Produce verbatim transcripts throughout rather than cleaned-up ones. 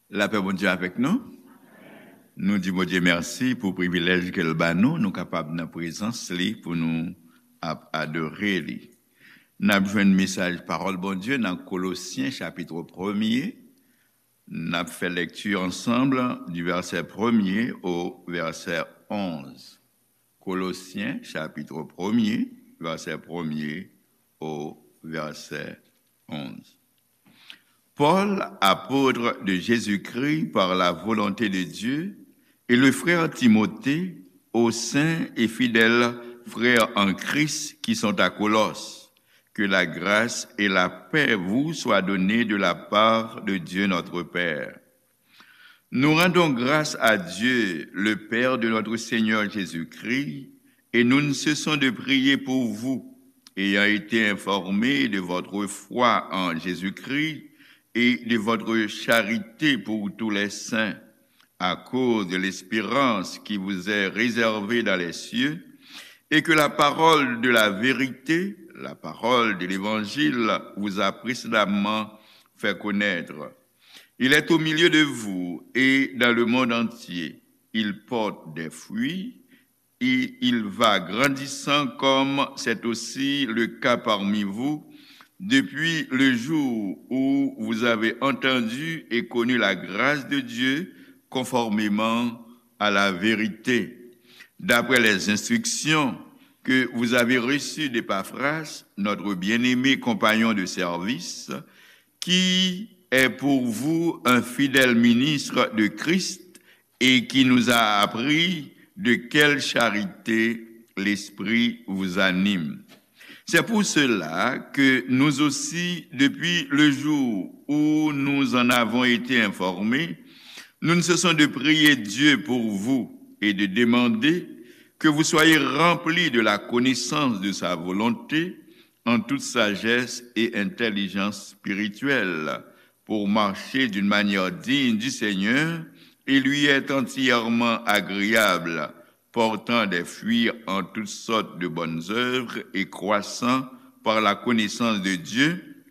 Lapè Bondye avèk nou. Nou di Bondye mèsi pou privilèj ke l ba nou, nou kapab nan prezans li pou nou ap adore li. N ap jwenn mesaj pawòl Bondye nan Kolosyen chapit premye. N ap fè lèkti ansanm di vèsè premye o vèsè onz. Kolosyen chapit premye, vèsè premye o vèsè onz. Paul, apôtre de Jésus-Christ par la volonté de Dieu, et le frère Timothée, aux saints et fidèles frères en Christ qui sont à Colosses, que la grâce et la paix vous soient données de la part de Dieu notre Père. Nous rendons grâce à Dieu, le Père de notre Seigneur Jésus-Christ, et nous ne cessons de prier pour vous, ayant été informés de votre foi en Jésus-Christ et de votre charité pour tous les saints, à cause de l'espérance qui vous est réservée dans les cieux, et que la parole de la vérité, la parole de l'évangile, vous a précédemment fait connaître. Il est au milieu de vous et dans le monde entier. Il porte des fruits et il va grandissant comme c'est aussi le cas parmi vous depuis le jour où vous avez entendu et connu la grâce de Dieu conformément à la vérité, d'après les instructions que vous avez reçues d'Epaphras, notre bien-aimé compagnon de service, qui est pour vous un fidèle ministre de Christ et qui nous a appris de quelle charité l'Esprit vous anime. C'est pour cela que nous aussi, depuis le jour où nous en avons été informés, nous ne cessons de prier Dieu pour vous et de demander que vous soyez remplis de la connaissance de sa volonté en toute sagesse et intelligence spirituelle, pour marcher d'une manière digne du Seigneur et lui être entièrement agréable, portant des fruits en toutes sortes de bonnes œuvres et croissant par la connaissance de Dieu,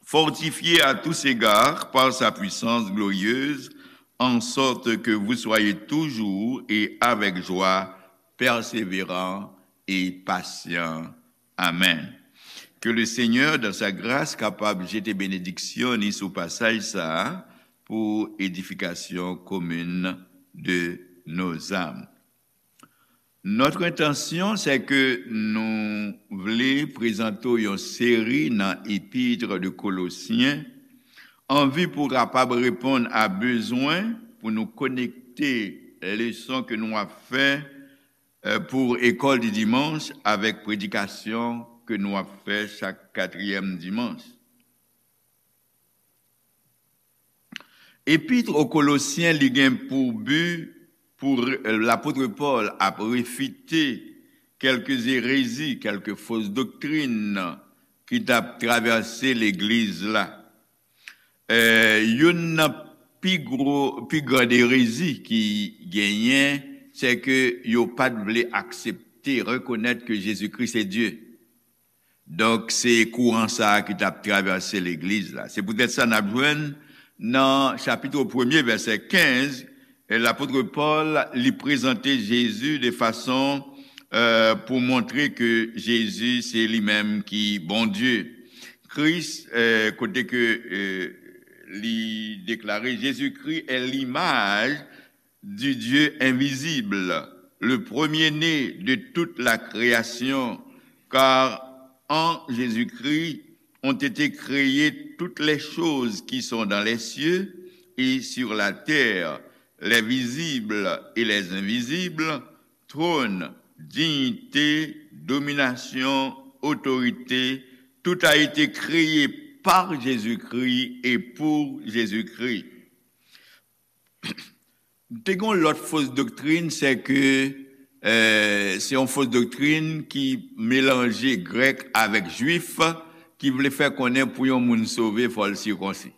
fortifiés à tous égards par sa puissance glorieuse, en sorte que vous soyez toujours et avec joie persévérants et patients. Amen. Ke Lesenyè, dans sa grâce, kapab jete benediksyon ni sou pasaj sa a pou edifikasyon komin de nos âmes. Notre intention, c'est que nou vle prezante w yon seri nan Epître de Colossiens, an vi pou kapab reponn a bezwen pou nou konekte leson ke nou ap fè, eh, pou École du Dimanche avèk predikasyon ke nou ap fè chak katriyèm dimanch. Epître aux Colossiens, li gen pou bi pou re-, lapot Pòl ap refite kèlke erezi, kèlke fos doktrin ki t ap travèse legliz la. Eh, youn nan pi gwo, pi gran erezi ki genyen, se ke yo pa t vle aksepte, rekonèt ke Jezikri se Dye. Donk, se kouran sa a ki t ap travèse legliz la. Se poutèt sa n ap jwenn nan chapit premye, vèsè kenz, e lapot Pòl, li prezante Jezi de fason, eh, pou montre ke Jezi se li menm ki Bondye. Kris, eh, kote ke, eh, li deklare, Jésus-Christ est l'image du Dieu invisible, le premier-né de toute la création, car en Jésus-Christ ont été créées toutes les choses qui sont dans les cieux et sur la terre, les visibles et les invisibles, trône, dignité, domination, autorité, tout a été créé par Jésus-Christ et pour Jésus-Christ. Te gen yon lòt fos doktrin, se ke, eh, se yon fos doktrin ki melanje grèk avèk jwif, ki vle fè konnen pou yon moun sove, fò l sikonsi.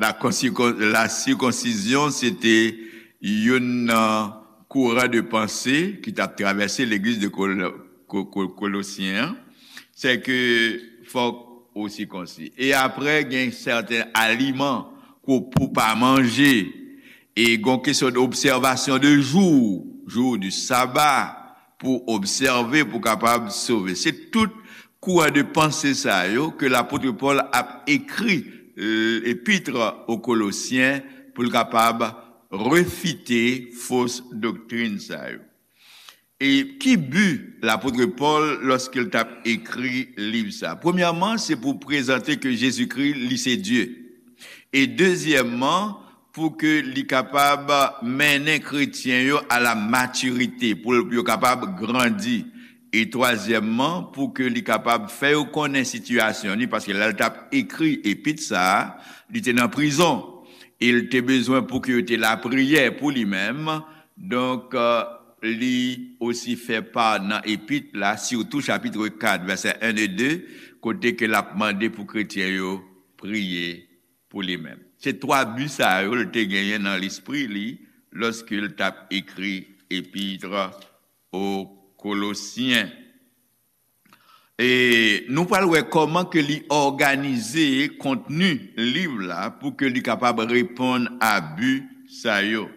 La consico-, la circoncision, se te youn nan kouran de panse ki t ap travèse legliz de Kol-, Ko-, Ko-, Kolosyen an. Se ke fòk Osi konsi. E apre, gen sèten aliman ke w pou pa manje. E gen kesyon de obsèvasyon de jou, jou di saba, pou obsève, pou kapab sove. Se tout kouran de panse sa yo ke lapot Pòl ap ekri, eh, epit o Kolosyen pou l kapab refite fo doktrin sa yo. E ki bi lapot Pòl lòske l t ap ekri liv sa? Premyèman, se pou prezante ke Jezikri, li se Dye. E dezyèmman, pou ke li kapab mennen kretyen yo a la matirite, pou yo kapab grandi. E twazyèmman, pou ke li kapab fè yo konnen sitiyasyon li, paske lè l t ap ekri epit sa a, li te nan prizon. E l te bezwen pou ke yo te lapriyè pou li menm. Donk, eh, li osi fè pa nan epit la, sitou chapit kat, vèsè en e de, kote ke l ap mande pou kretyen yo priye pou li menm. Se twa bi sa yo l te genyen nan lespri li lòske l t ap ekri epit o Kolosyen. E nou pral wè kòman ke li òganize kontni liv la pou ke li kapab reponn a bi sa yo.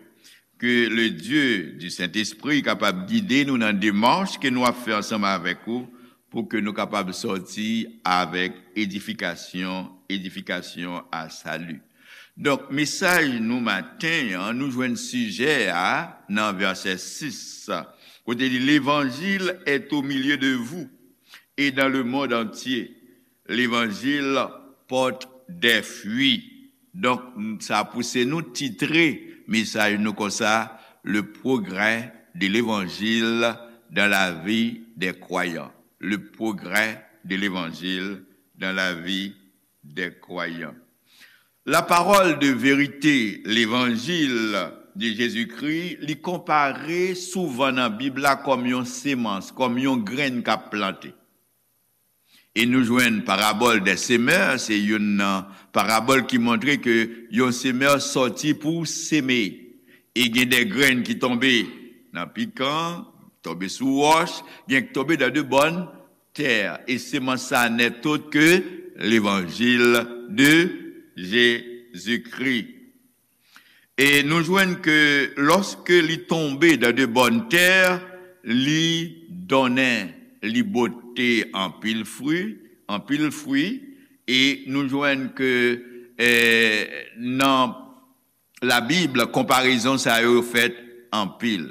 Ke le Dye di Sentespri kapab gide nou nan demach ke nou ap fè ansanm avèk ou pou ke nou kapab sòti avèk edifikasyon, edifikasyon a sali. Donk, mesaj nou maten an, nou jwenn sijè a nan vèsè sis, kote li, L'évangile est au milieu de vous et dans le monde entier. L'évangile porte des fruits. Donk, sa pouse nou titre mesaj nou konsa, Le progrès de l'évangile dans la vie des croyants. Le progrès de l'évangile dans la vie des croyants. La parole de vérité, l'évangile de Jésus-Christ, li konpare souvan nan Bib la kòm yon semans, kòm yon grenn k ap plante. E nou jwenn parabòl dè semè, se youn nan parabòl ki montre ke yon semè sòti pou seme. E gen de grenn ki tonbe nan pikan, tonbe sou wòch, gen ki tonbe dans de bonnes terres. E semans sa n'est autre que l'évangile de Jésus-Christ. E nou jwenn ke lòske li tonbe dans de bonnes terres, li donnen, li pote anpil fwi, anpil fwi, e nou jwenn ke, eh, nan Labib, konparezon sa yo fèt anpil.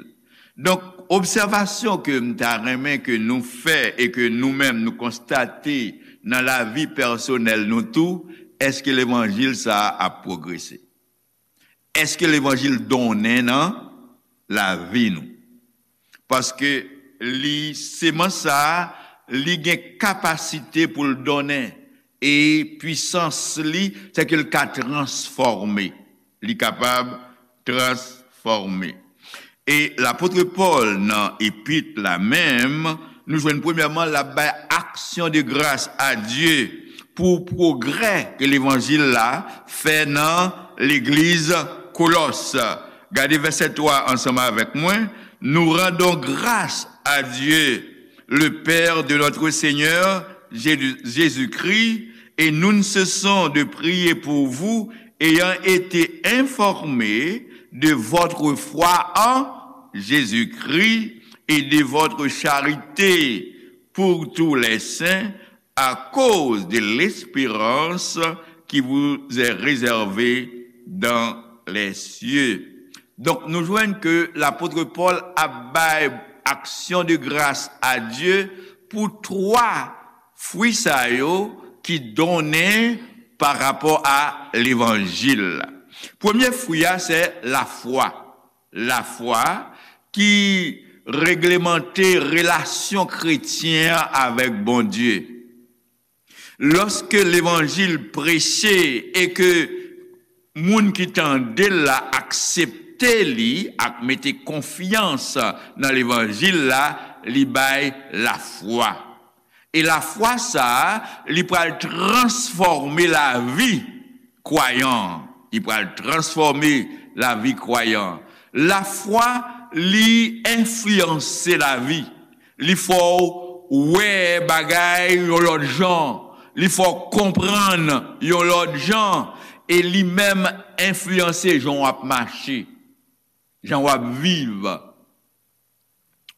Donk, obsèvasyon ke m ta renmen ke nou fè e ke nou menm nou konstate nan lavi pèsonèl nou tou, èske levanjil sa a ap pwogrese? Èske levanjil donnen nan lavi nou? Paske li, semans sa a, li gen kapasite pou l donnen. E pwisans li, se ke l ka transfòme. Li kapab transfòme. E lapot Pòl, nan epit la menm, nou jwenn premyèman, l ap bay aksyon de gras a Dye pou pwogrè ke levanjil la fè nan legliz Kolòs. Gade vèsè twa ansanm avèk mwen. Nous rendons grâce à Dieu, le Père de notre Seigneur Jésus-Christ, et nous ne cessons de prier pour vous, ayant été informés de votre foi en Jésus-Christ et de votre charité pour tous les saints à cause de l'espérance qui vous est réservée dans les cieux. Donk, nou jwenn ke lapot Pòl ap bay aksyon de gras a Dye pou twa fwi sa yo ki donnen pa rapò a levanjil la. Premye fwi a, se lafwa. Lafwa ki reglemante relasyon kretyen an avèk Bondye. Lòske levanjil preche e ke moun ki tande l la aksepte li ak mete konfyans nan levanjil la, li bay lafwa. E lafwa sa a, li pral transfòme lavi kwayan an. Li pral transfòme lavi kwayan an. Lafwa, li enfliyanse lavi. Li fè w wè bagay yon lòt jan. Li fè w konprann yon lòt jan, e li menm enfliyanse jan w ap mache, jan w ap viv,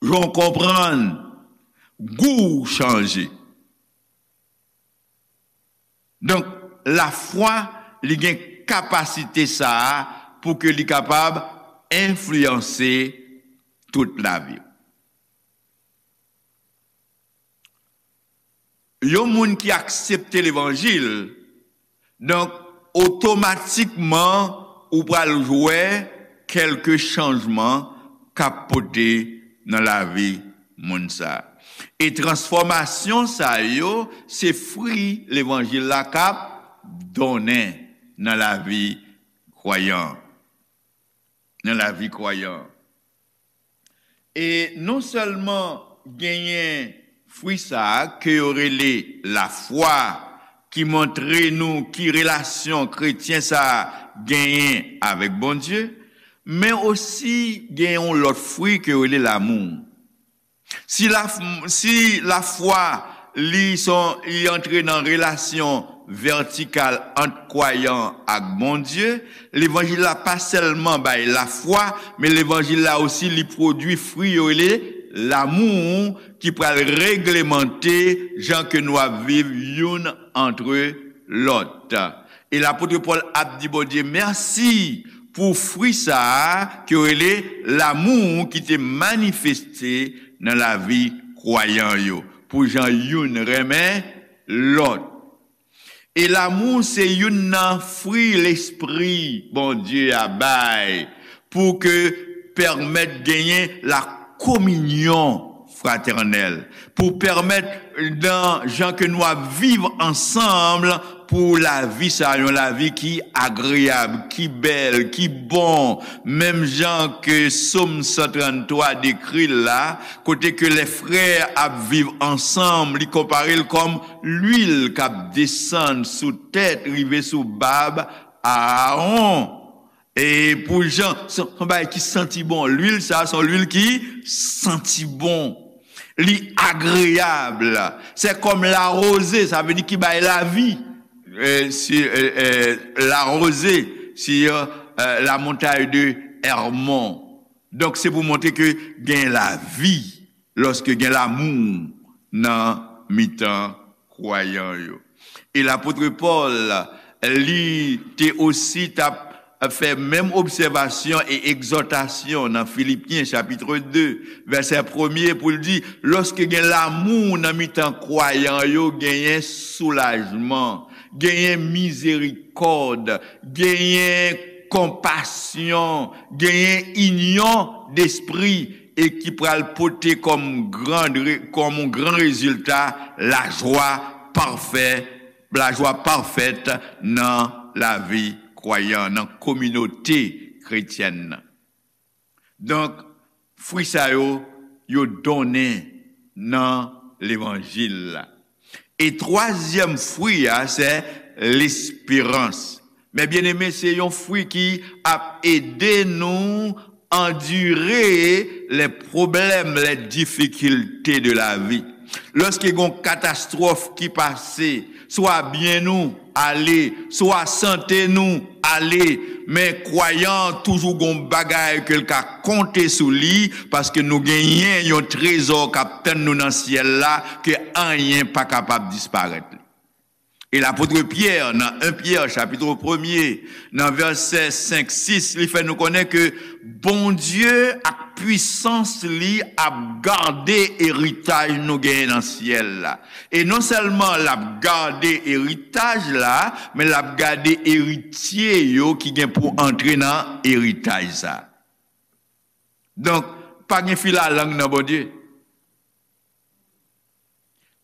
jan w konprann, gou w chanje. Donk, lafwa, li gen kapasite sa a pou ke li kapab enfliyanse tout lavi w. Yon moun ki aksepte levanjil, donk, otomatikman, ou pral wè kèlke chanjman k ap pote nan lavi moun sa a. E transfòmasyon sa yo, se fwi levanjil la k ap donnen nan lavi kwayan. Nan lavi kwayan. E non sèlman genyen fwi sa a ke yo rele lafwa, ki montre nou ki relasyon kretyen sa a genyen avèk Bondye, men osi gen yon lòt fwi ke yo rele lamou. Si la, si lafwa li son, li antre nan relasyon vètikal ant kwayan ak Bondye, levanjil la pa sèlman bay lafwa, men levanjil la osi li pwodui fwi yo rele lamou ki pral reglemante jan ke nou ap viv youn antre lòt. E lapot Pòl ap di Bondye mèsi pou fwi sa a ke yo rele lamou ki te manifeste nan lavi kwayan yo, pou jan youn renmen lòt. E lamou se youn nan fwi Lespri Bondye a bay pou ke pèmèt genyen la kominyon fratènèl, pou pèmèt nan jan ke nou ap viv ansanm pou lavi sa, yon lavi ki agreyab, ki bèl, ki bon, menm jan ke Sòm san tranntwa dekri l la, kote ke lè frè ap viv ansanm, li konpare l kòm lwil k ap desann sou tèt, rive sou bab Aawon. E pou jan, se, se yon bagay ki santi bon. Lwil sa, se yon lwil ki santi bon. Li agreyab. Se kòm lawoze, sa vle di ki bay lavi. E, si, e, e, lawoze, si, e, la montagne de Hermon. Donk, se pou montre ke gen lavi lòske gen lamou nan mitan kwayan yo. E lapot Pòl, li te osi t ap fè menm obsèvasyon e egzòtasyon nan Filipyen chapit de, vèsè premye, pou l di, lòske gen lamou nan mitan kwayan yo, genyen soulajman, genyen mizerikòd, genyen konpasyon, genyen inyon despri, e ki pral pote kòm gran re-, kòm yon gran rezilta lajwa pafè, lajwa pafèt nan lavi kwayan, nan kominote kretyèn nan. Donk, fwi sa yo, yo donnen nan levanjil la. E twazyèm fwi a, se lesperans. Men byeneme, se yon fwi ki ap ede nou andire les problèmes, les difficultés de la vie. Lòske gon katastwòf ki pase, swa byen nou ale, swa sante nou ale, men kwayan an toujou gon bagay ke l ka konte sou li, paske nou genyen yon trezò k ap tann nou nan syèl la, ke anyen pa kapab disparèt li. E lapot Pyè, nan en Pyè, chapit premye, nan vèsè senk, sis, li fè nou konnen ke Bondye ak pwisans li ap gade eritaj nou genyen nan syèl la. E non sèlman l ap gade eritaj la, men l ap gade eritye yo ki gen pou antre nan eritaj sa. Donk, pa gen filalang nan Bondye.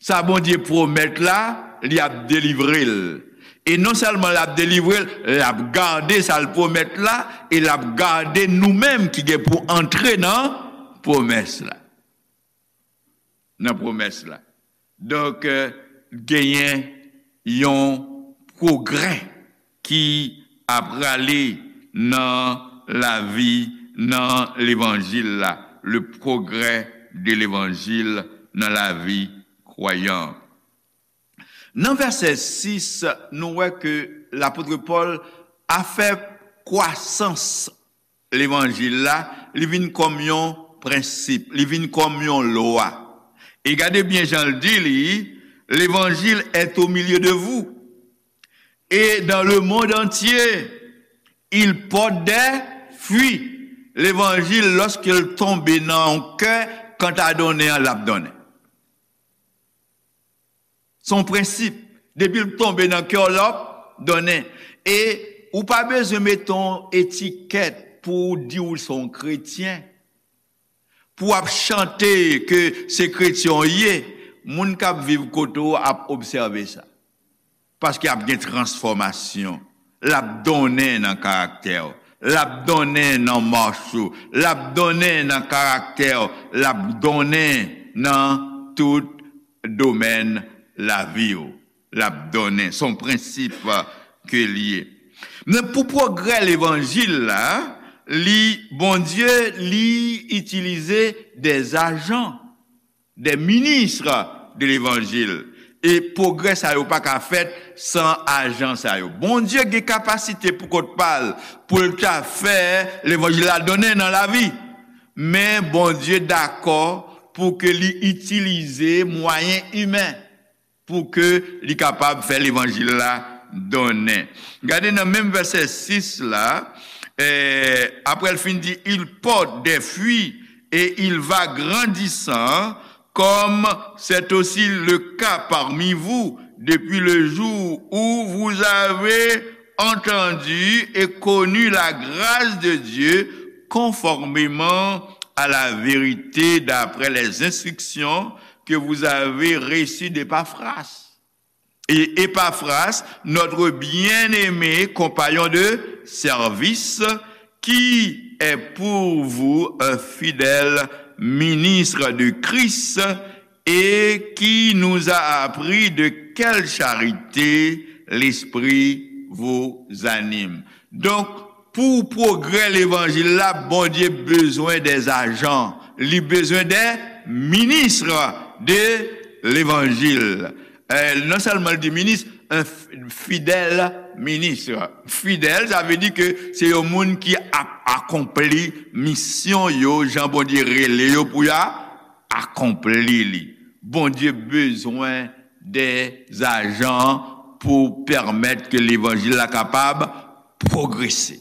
Sa Bondye pwomèt la, li ap delivre l. E non sèlman l ap delivre l, l ap gade sa l pwomèt la, e l ap gade nou menm ki gen pou antre nan pwomès la. Nan pwomès la. Donk, euh, genyen yon pwogrè ki ap prale nan lavi, nan levanjil la, le progrès de l'évangile nan lavi kwayan. Nan vèsè sis, nou wè ke lapot Pòl a fè kwasans levanjil la, li vin kòm yon prensip, li vin kòm yon lwa. E gade byen jan l di li, l'évangile est au milieu de vous et dans le monde entier, il porte des fruits. Levanjil, lòske l tonbe nan yon kè, kanta donnen an, l ap donnen. Se yon prensip. Depi l tonbe nan kè w, l ap donnen. E ou pa bezwen mete yon etikèt pou w di w se yon kretyen. Pou w ap chante ke se kretyen w ye, moun k ap viv kote w ap obsève sa. Paske ap gen transfòmasyon. L ap donnen nan karaktè w. L ap donnen nan mach ou. L ap donnen nan karaktè w. L ap donnen nan tout domèn lavi w. L ap donnen. Se yon prensip ke l ye. Men pou pwogrè levanjil la, li, Bondye, li itilize des agents, des ministres de l'évangile. E pwogrè sa yo pa ka fèt san ajan sa yo. Bondye gen kapasite pou kont pa l, pou l ta fè levanjil la donnen nan lavi. Men Bondye dakò pou ke li itilize mwayen imen pou ke li kapab fè levanjil la donnen. Gade nan menm vèsè sis la, eh, apre l fin di, il porte des fruits et il va grandissant, comme c'est aussi le cas parmi vous depuis le jour où vous avez entendu et connu la grâce de Dieu conformément à la vérité d'après les instructions que vous avez reçues d'Epaphras. Et Epaphras, notre bien-aimé compagnon de service, qui est pour vous un fidèle ministre de Christ et qui nous a appris de quelle charité l'Esprit vous anime. Donk, pou pwogrè levanjil la, Bondye bezwen des agents, li bezwen des ministres de l'évangile. Eh, non sèlman l di minis, un f-, fidèle ministre. Fidèl, sa vle di ke se yon moun ki ap akonpli misyon yo, jan Bondye rele yo pou y a akonpli li. Bondye bezwen des agents pou pèmèt ke levanjil la kapab pwogrese.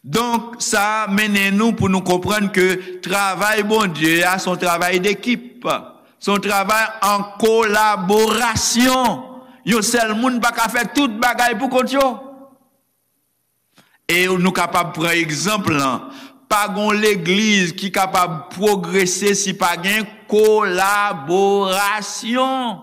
Donk, sa mennen nou pou nou konprann ke travay Bondye a se yon travay dekip. Se yon travay an kolaborasyon. Yon sèl moun pa ka fè tout bagay pou kont yo. E nou kapab pran egzanp lan, pa gon legliz ki kapab pwogrese si pa gen kolaborasyon.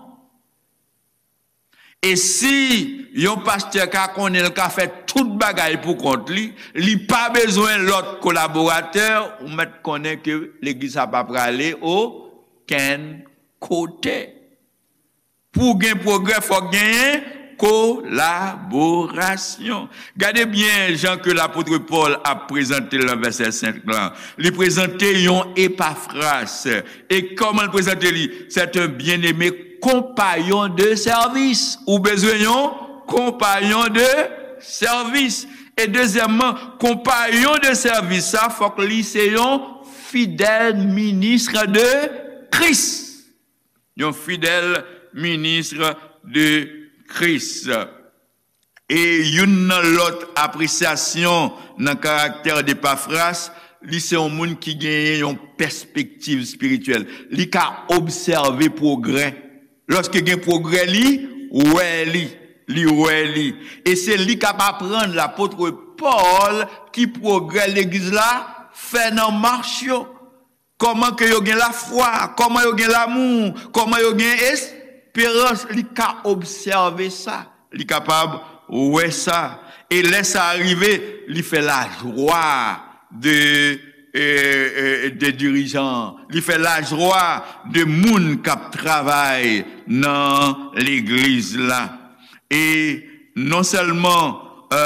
E si yon pastè ka konnen l ka fè tout bagay pou kont li, li pa bezwen lòt kolaboratè, ou mèt konnen ke legliz sa pa prale okenn kote. Pou gen pwogrè, fòk genyen kolaborasyon. Gade byen jan ke lapot Pòl ap prezante l nan vèsè senk lan. Li prezante yon Epafras. E kòman l prezante li? C'est un bien-aimé compagnon de service. Ou bezwen yon konpayon de sèvis. E dezyèmman, konpayon de sèvis sa, fòk li se yon fidèl minis de Kris. Yon fidèl minis de Kris. E youn nan lòt apresyasyon nan karaktè de Epafras, li se yon moun ki genyen yon pèspektiv espirityèl. Li ka obsève pwogrè. Lòske gen pwogrè, li wè li. Li wè li. E se li k ap aprann lapot Pòl ki pwogrè legliz la fè nan mach yo. Kòman ke yo gen lafwa, kòman yo gen lamou, kòman yo gen esperans, li ka obsève sa, li kapab wè sa. E lè sa rive, li fè lajwa de, e, e, de dirijan, li fè lajwa de moun k ap travay nan legliz la. E non sèlman, e,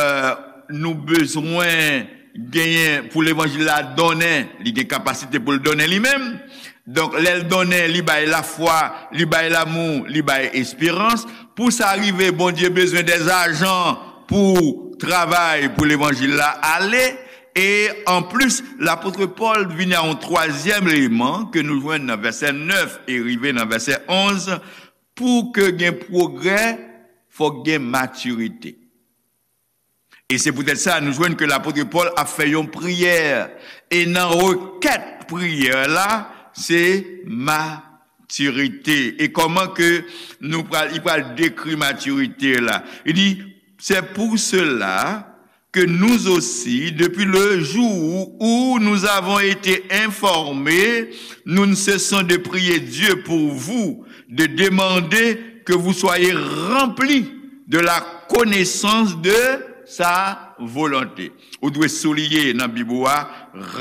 nou bezwen genyen pou levanjil la donnen, li gen kapasite pou l donnen li menm, Donk, lè l donnen, li bay lafwa, li bay lanmou, li bay esperans. Pou sa rive, Bondye bezwen dè ajan pou travay pou levanjil la ale. E anplis, lapot Pòl vini a yon twazyèm eleman ke nou jwenn nan vèsè nèf e rive nan vèsè onz. Pou ke gen pwogrè, fòk gen matirite. E se poutèt sa, nou jwenn ke lapot Pòl ap fè yon priyè. E nan rekèt priyè la, se matirite. E kòman ke nou pral, li pral dekri matirite la? Li di, c'est pour cela que nous aussi, depuis le jour où nous avons été informés, nous ne cessons de prier Dieu pour vous, de demander que vous soyez remplis de la connaissance de sa volonté. Ou dwe souliye nan Bib ou a,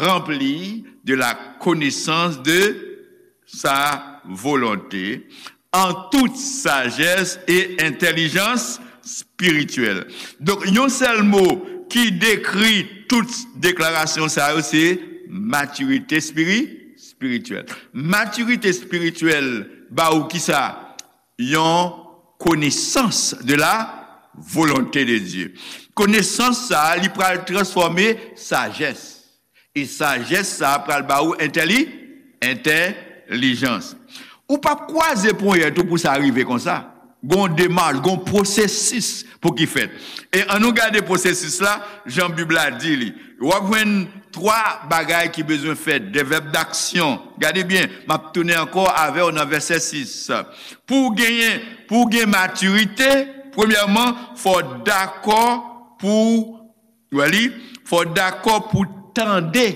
remplis de la connaissance de sa volonté, en toute sagesse et intelligence spirituelle. Donk, yon sèl mo ki dekri tout deklarasyon sa yo, se matirite espiri-, espirityèl. Matirite espirityèl ba ou kisa? Yon konesans de la volonte de Dye. Konesans sa a, li pral transfòme sajès. E sajès sa a pral ba ou entèli-, entèlijans. Ou p ap kwaze ponyèt ou pou sa rive konsa. Gon demach, gon pwosesis pou ki fèt. E ann nou gade pwosesis la, jan Bib la di li. W ap jwenn twa bagay ki bezwen fèt, de vèb daksyon. Gade byen, m ap tounen ankò avè w nan vèsè sis. Pou w genyen, pou w gen matirite, premyèman, fò w dakò pou, w wè li, fò w dakò pou tande.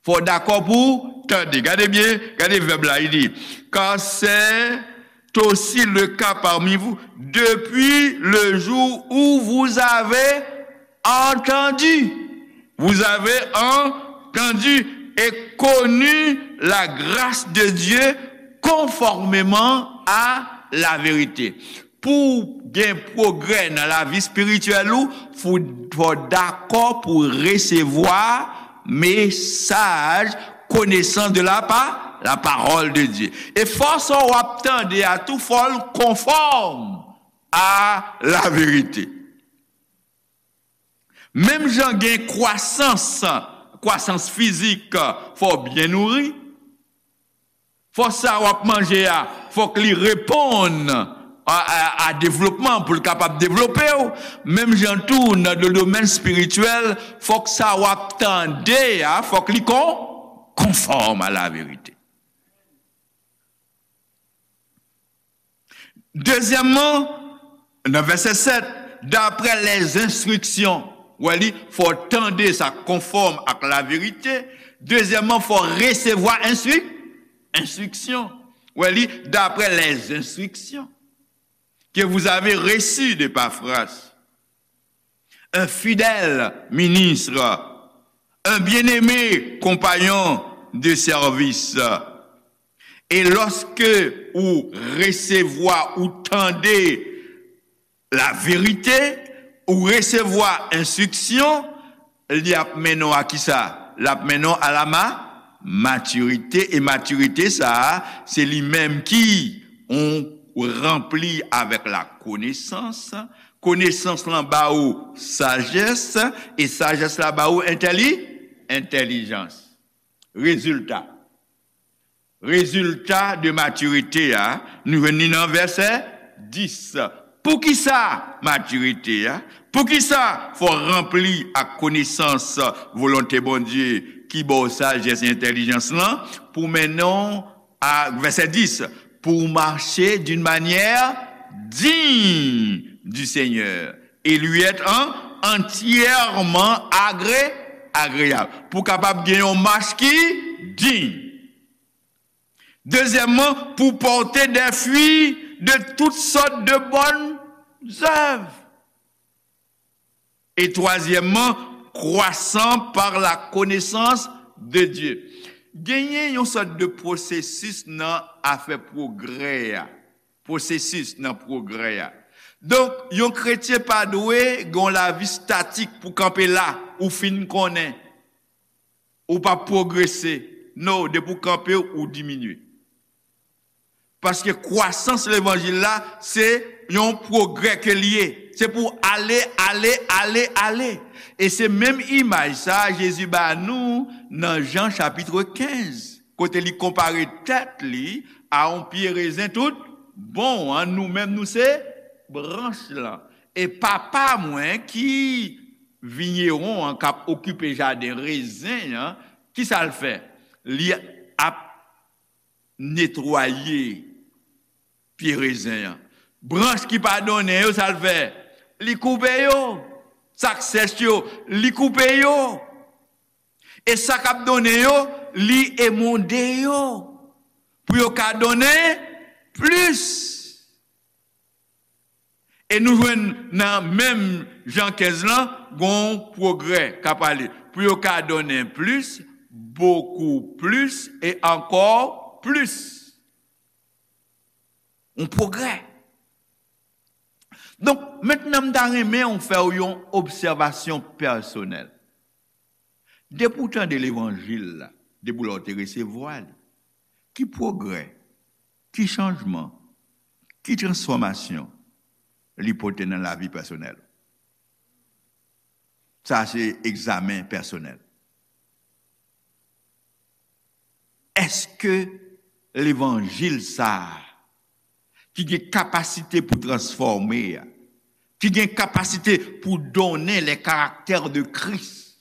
Fò w dakò pou tande. Gade byen, gade vèb la, li di, car c'est aussi le cas parmi vous, depuis le jour où vous avez entendu. Vous avez entendu et connu la grâce de Dieu conformément à la vérité. Pou w gen pwogrè nan lavi espirityèl ou, fò, fò w dakò pou w resevwa mesaj, konesans de la pa, la parole de Dieu. E fò sa w ap tande a tou, fò l konfòm a la verite. Menm jan gen kwasans, kwasans fizik, fò w byen nouri. Fò sa w ap manje a, fòk li reponn a, a, a devlopman, pou l kapab devlope w. Menm jan tou, nan do-, domèn espirityèl, fòk sa w ap tande a, fòk li kon-, konfòm a la verite. Dezyèmman, nan vèsè sèt, d'après les instructions. Wè li, fò tande sa konfòm ak laverite. Dezyèmman, fò resevwa enstri-, enstriksyon. Wè li, d'après les instructions que vous avez reçues d'Epaphras, un fidèle ministre, un bien-aimé compagnon de service. E lòske ou resevwa, ou tande laverite, ou resevwa enstriksyon, li ap mennen w a kisa? L ap mennen w a la ma-, matirite. E matirite sa a, se li menm ki ou ranpli avèk la konesans. Konesans lan ba ou sajès, e sajès la ba ou entèli-, entèlijans. Rezilta. Rezilta de matirite a, nou jwenn li nan vèsè dis. Poukisa matirite a? Poukisa fò w ranpli ak konesans volonte Bondye ki ba w sajès e entèlijans lan pou mennen w a, vèsè dis, pour marcher d'une manière digne du Seigneur et lui être en-, entièrement agré-, agréable. Pou kapab gen yon mach ki diy. Dezyèmman, pour porter des fruits de toutes sortes de bonnes œuvres. E twazyèmman, croissant par la connaissance de Dieu. Genyen yon sòt de pwosesis nan afè pwogrè a. Pwosesis nan pwogrè a. Donk, yon kretyen pa dwe gen yon lavi statik pou kanpe la, ou fin konnen. Ou p ap pwogrese. No, depi w kanpe, ou diminye. Paske kwasans levanjil la, se yon pwogrè ke l ye. Se pou ale, ale, ale, ale. E se menm imaj sa a Jezi ba nou nan Jan chapit kenz, kote li konpare tèt li a yon pye rezen tout bon an. Nou menm, nou se branch lan. E Papa mwen ki vinyewon an, k ap okipe jaden rezen an, ki sa l fè? Li ap netwaye pye rezen an. Branch ki pa donnen yo, sa l fè? Li koupe yo. Sa k sèch yo, li koupe yo. E sa k ap donnen yo, li emonde yo. Pou yo ka donnen plis. E nou jwenn nan menm Jan kenz lan, gon pwogrè k ap pale. Pou yo ka donnen plis, bokou plis, e ankò plis. Yon pwogrè. Donk, mentnan m ta renmen w fè w yon obsèvasyon pèsonèl. Depi w tande levanjil la, depi lè w te resevwa li, ki pwogrè, ki chanjman, ki transfòmasyon li pote nan lavi pèsonèl ou? Sa se egzamen pèsonèl. Èske levanjil sa a, ki gen kapasite pou transfòme a, ki gen kapasite pou donnen les caractères de Christ,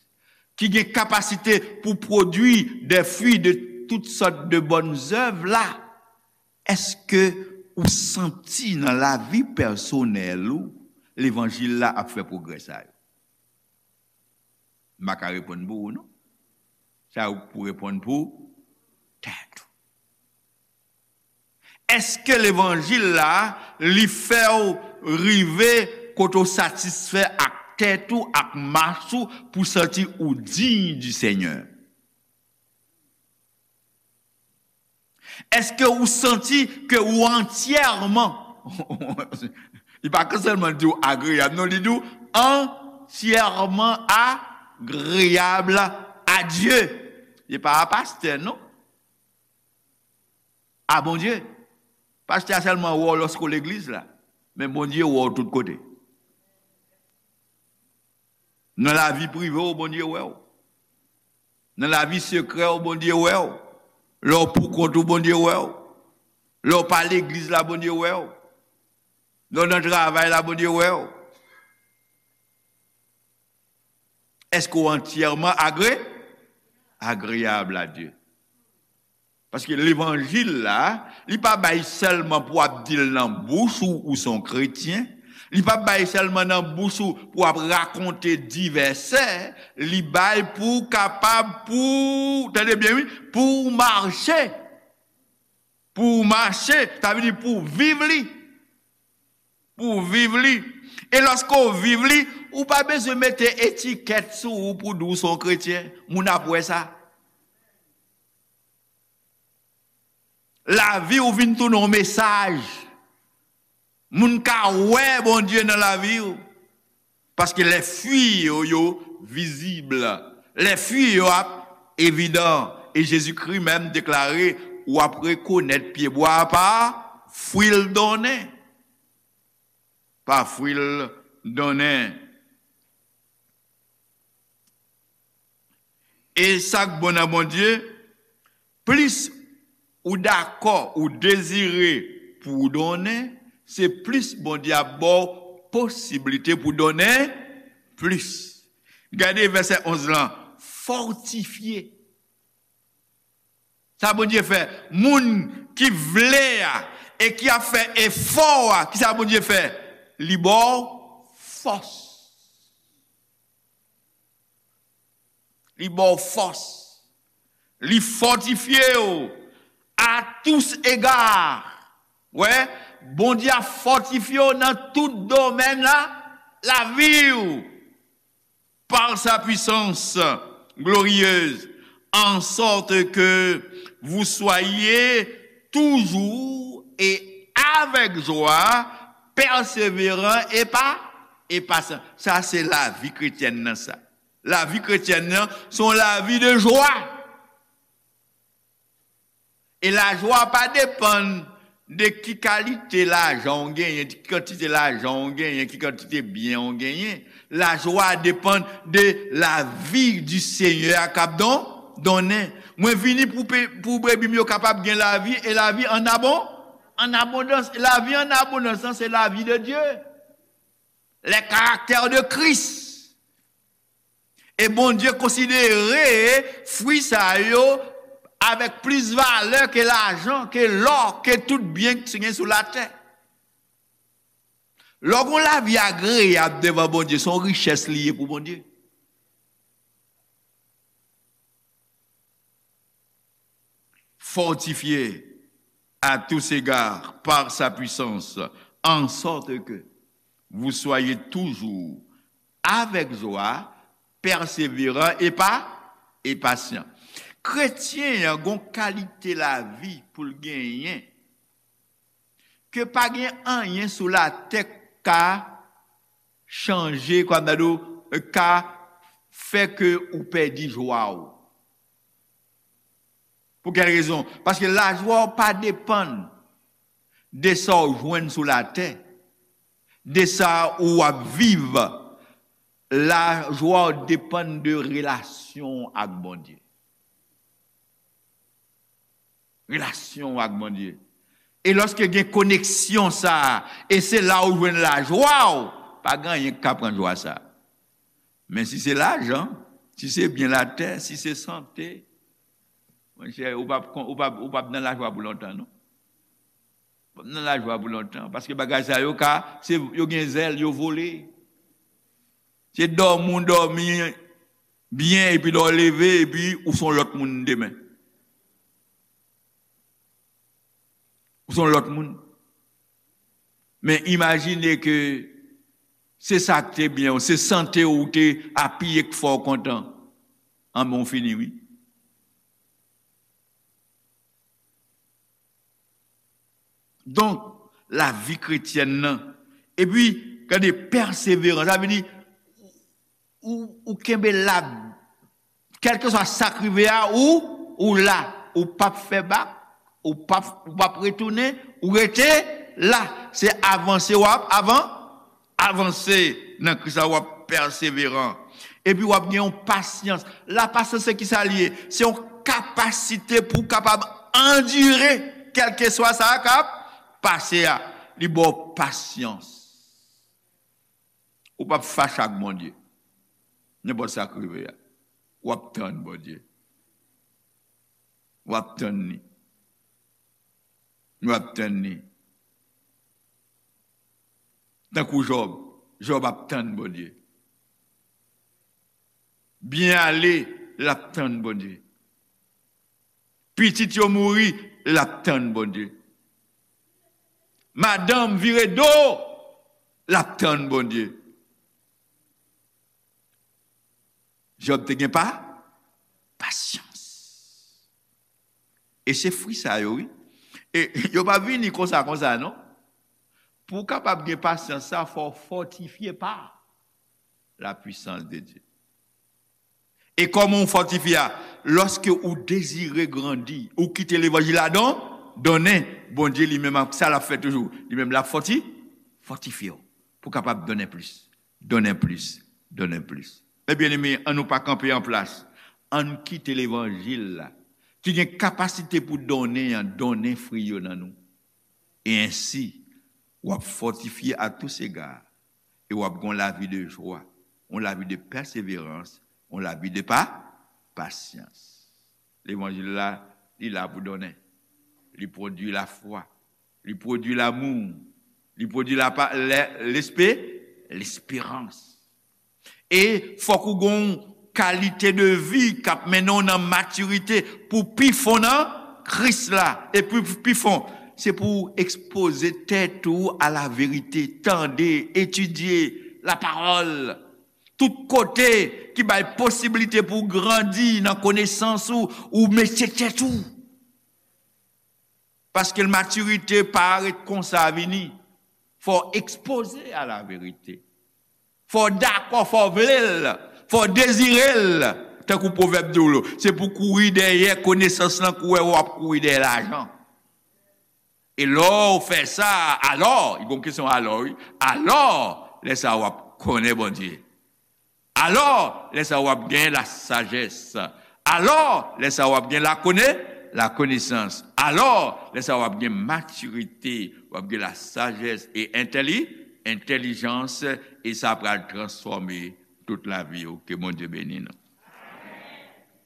ki gen kapasite pou pwodui des fruits de toutes sortes de bonnes œuvres la, èske ou santi nan lavi pèsonèl ou levanjil la ap fè pwogrè sa yo? M pa ka reponn pou ou, non. Sa ou pou reponn pou tèt ou. Èske levanjil la, li fè w rive kote w satisfè ak tèt ou, ak mach ou, pou santi ou diy di Senyè? Èske ou santi ke ou antyèman, li pa ka sèlman di w agreyab, non, li di w antyèman agreyab a Dye. Li pa a pastè, non. A Bondye. Pastè a sèlman wè w lòske w legliz la. Men Bondye wè w tout kote. Nan lavi prive w, Bondye wè w. Nan lavi sekrè w, Bondye wè w. Lè w poukont ou, Bondye wè w. Lè w pa legliz la, Bondye wè w. Lè w nan travay la, Bondye wè w. Èske w antyèman agre-, agreyab a Dye? Paske levanjil la, li pa bay sèlman pou w ap di l nan bouch ou, ou se yon kretyen. Li pa bay sèlman nan bouch ou pou w ap rakonte divèsè. Li bay pou w kapab, pou, tande byen, wi, pou w mache. Pou w mache, sa vle di pou w viv li. Pou w viv li. E lòske w viv li, ou pa bezwen mete etikèt sou ou pou di w se yon kretyen. Moun ap wè sa. Lavi w vin tounen yon mesaj. Moun ka wè Bondye nan lavi w. Paske les fruits yo, yo vizib. Les fruits yo ap evidan. E Jezikri menm deklare, w ap rekonèt pyebwa a pa fwi l donnen. Pa fwi l donnen. E sa k bon nan Bondye, plis ou dakò, ou dezire pou w donnen, se plis Bondye ap ba w posiblite pou w donnen plis. Gade vèsè onz lan, fòtifye. Sa Bondye fè? Moun ki vle a e ki ap fè efò a, ki sa Bondye fè? Li ba w fòs. Li ba w fòs. Li fòtifye w à tous égards. Wè, Bondye ap fòtifye w nan tout domèn la, lavi w. Par sa puissance glorieuse, en sorte que vous soyez toujours et avec joie, persévérants et pa, et patient. Sa se lavi kretyèn nan sa. Lavi kretyèn nan, se yon lavi de jwa. E lajwa pa depann de ki kalite lajan w genyen, ki kantite lajan w genyen, ki kantite byen w genyen. Lajwa depann de lavi di Senyè a k ap don, donnen. Mwen vini pou, pe- pou brebi m yo kapab gen lavi, e lavi an abon, an abondans. Lavi an abondans lan, se lavi de Dye. Les caractères de Christ. E Bondye konsidere fwi sa yo avèk plis valè ke lajan, ke lò, ke tout byen ki gen sou latè. Lè w gen yon lavi agreyab devan Bondye, se yon richès li ye pou Bondye. Fortifié à tous égards par sa puissance, en sorte que vous soyez toujours avec joie, persévérant et pa, et patient. Kretyen an gon kalite lavi pou l genyen ke pa gen anyen sou latè k ka chanje, kwa m ta di w, ka fè ke ou pèdi jwa w. Pou kèl rezon? Paske lajwa w pa depann de sa w jwenn sou latè, de sa ou ap viv. Lajwa w depann de relasyon w ak Bondye. Relasyon w ak Bondye. E lòske gen koneksyon sa a, e se la ou jwenn lajwa w, pa gen anyen k ka pran jwa sa a. Men si se lajan, si se byen latè, si se sante, monchè, ou p ap, ou p ap, ou p ap nan lajwa pou lontan, non. Ou p ap nan lajwa pou lontan, paske bagay sa yo ka, se, yo gen zèl, yo vole. Se dòmi w dòmi byen, epi lè w leve, epi ou se yon lòt moun demen. Ou se yon lòt moun. Men imajine ke se sa k te byen w, se sante w ou te apiye k fè w kontan. Anben, w fini, wi. Donk, lavi kretyèn nan, epi, gade, pèseverans, sa vle di, ou, ou kenbe la, kèlkeswa sa k rive a, ou, ou la, ou p ap fè bak, ou p ap, ou p ap retounen, ou rete la. Se avanse w ap avan, avanse nan Kris la, w ap pèseveran. Epi w ap gen yon pasyans. Lapasyans se kisa l ye? Se yon kapasite pou w kapab andire kèlkeswa sa k ap pase a. Li ba w pasyans. Ou p ap fache ak Bondye. Nenpòt sa k rive a, w ap tann Bondye. W ap tann li. W ap tann li. Tankou Jòb, Jòb ap tann Bondye. Byen ale, l ap tann Bondye. Pitit yo mouri, l ap tann Bondye. Madanm vire do, l ap tann Bondye. Jòb te gen pa, pasyans. E se fwi sa yo, wi. E yo pa vini konsa, konsa, non. Pou w kapab gen pasyans sa, fò w fòtifye pa la puissance de Dieu. E kòman w fòtifye a? Lòske ou dezire grandi, ou kite levanjil la don, donnen, Bondye li menm, sa l ap fè toujou. Li menm l ap fòti, fòtifye w pou w kapab donnen plis, donnen plis, donnen plis. Men byeneme, ann nou pa kanpe an plas. Ann kite levanjil la, ki gen kapasite pou donnen an, donnen fwi yo nan nou. E ensi, w ap fòtifye à tous égards, e w ap gen yon lavi de jwa, yon lavi de pèseverans, yon lavi de pa, pasyans. Levanjil la, li la pou donnen. Li pwodui lafwa. Li pwodui lamou. Li pwodui lapa, lè, lespe, lesperans. E fòk ou gen yon kalite de vi k ap mennen w nan matirite pou pi fon nan Kris la. E pou pi fon, se pou w ekspoze tèt ou a la verite, tande, etidye lapawòl. Tout kote ki bay posiblite pou w grandi nan konesans ou, ou mete tèt ou. Paske matirite pa ret konsa vini. Fò w ekspoze a la verite. Fò w dakò, fò w vle l, fò w dezire l. Tankou pwovèb di w, se pou kouri dèyè konesans lan, kouri w ap kouri dèyè lajan. E lè w fè sa, alò, li gen yon kesyon alò, wi. Alò, lè sa w ap konnen Bondye. Alò, lè sa w ap gen lasajès. Alò, lè sa w ap gen lakone, lakonesans. Alò, lè sa w ap gen matirite, w ap gen lasajès e entèli, entèlijans, e sa pral transfòme tout lavi w. Ke Bondye beni nou.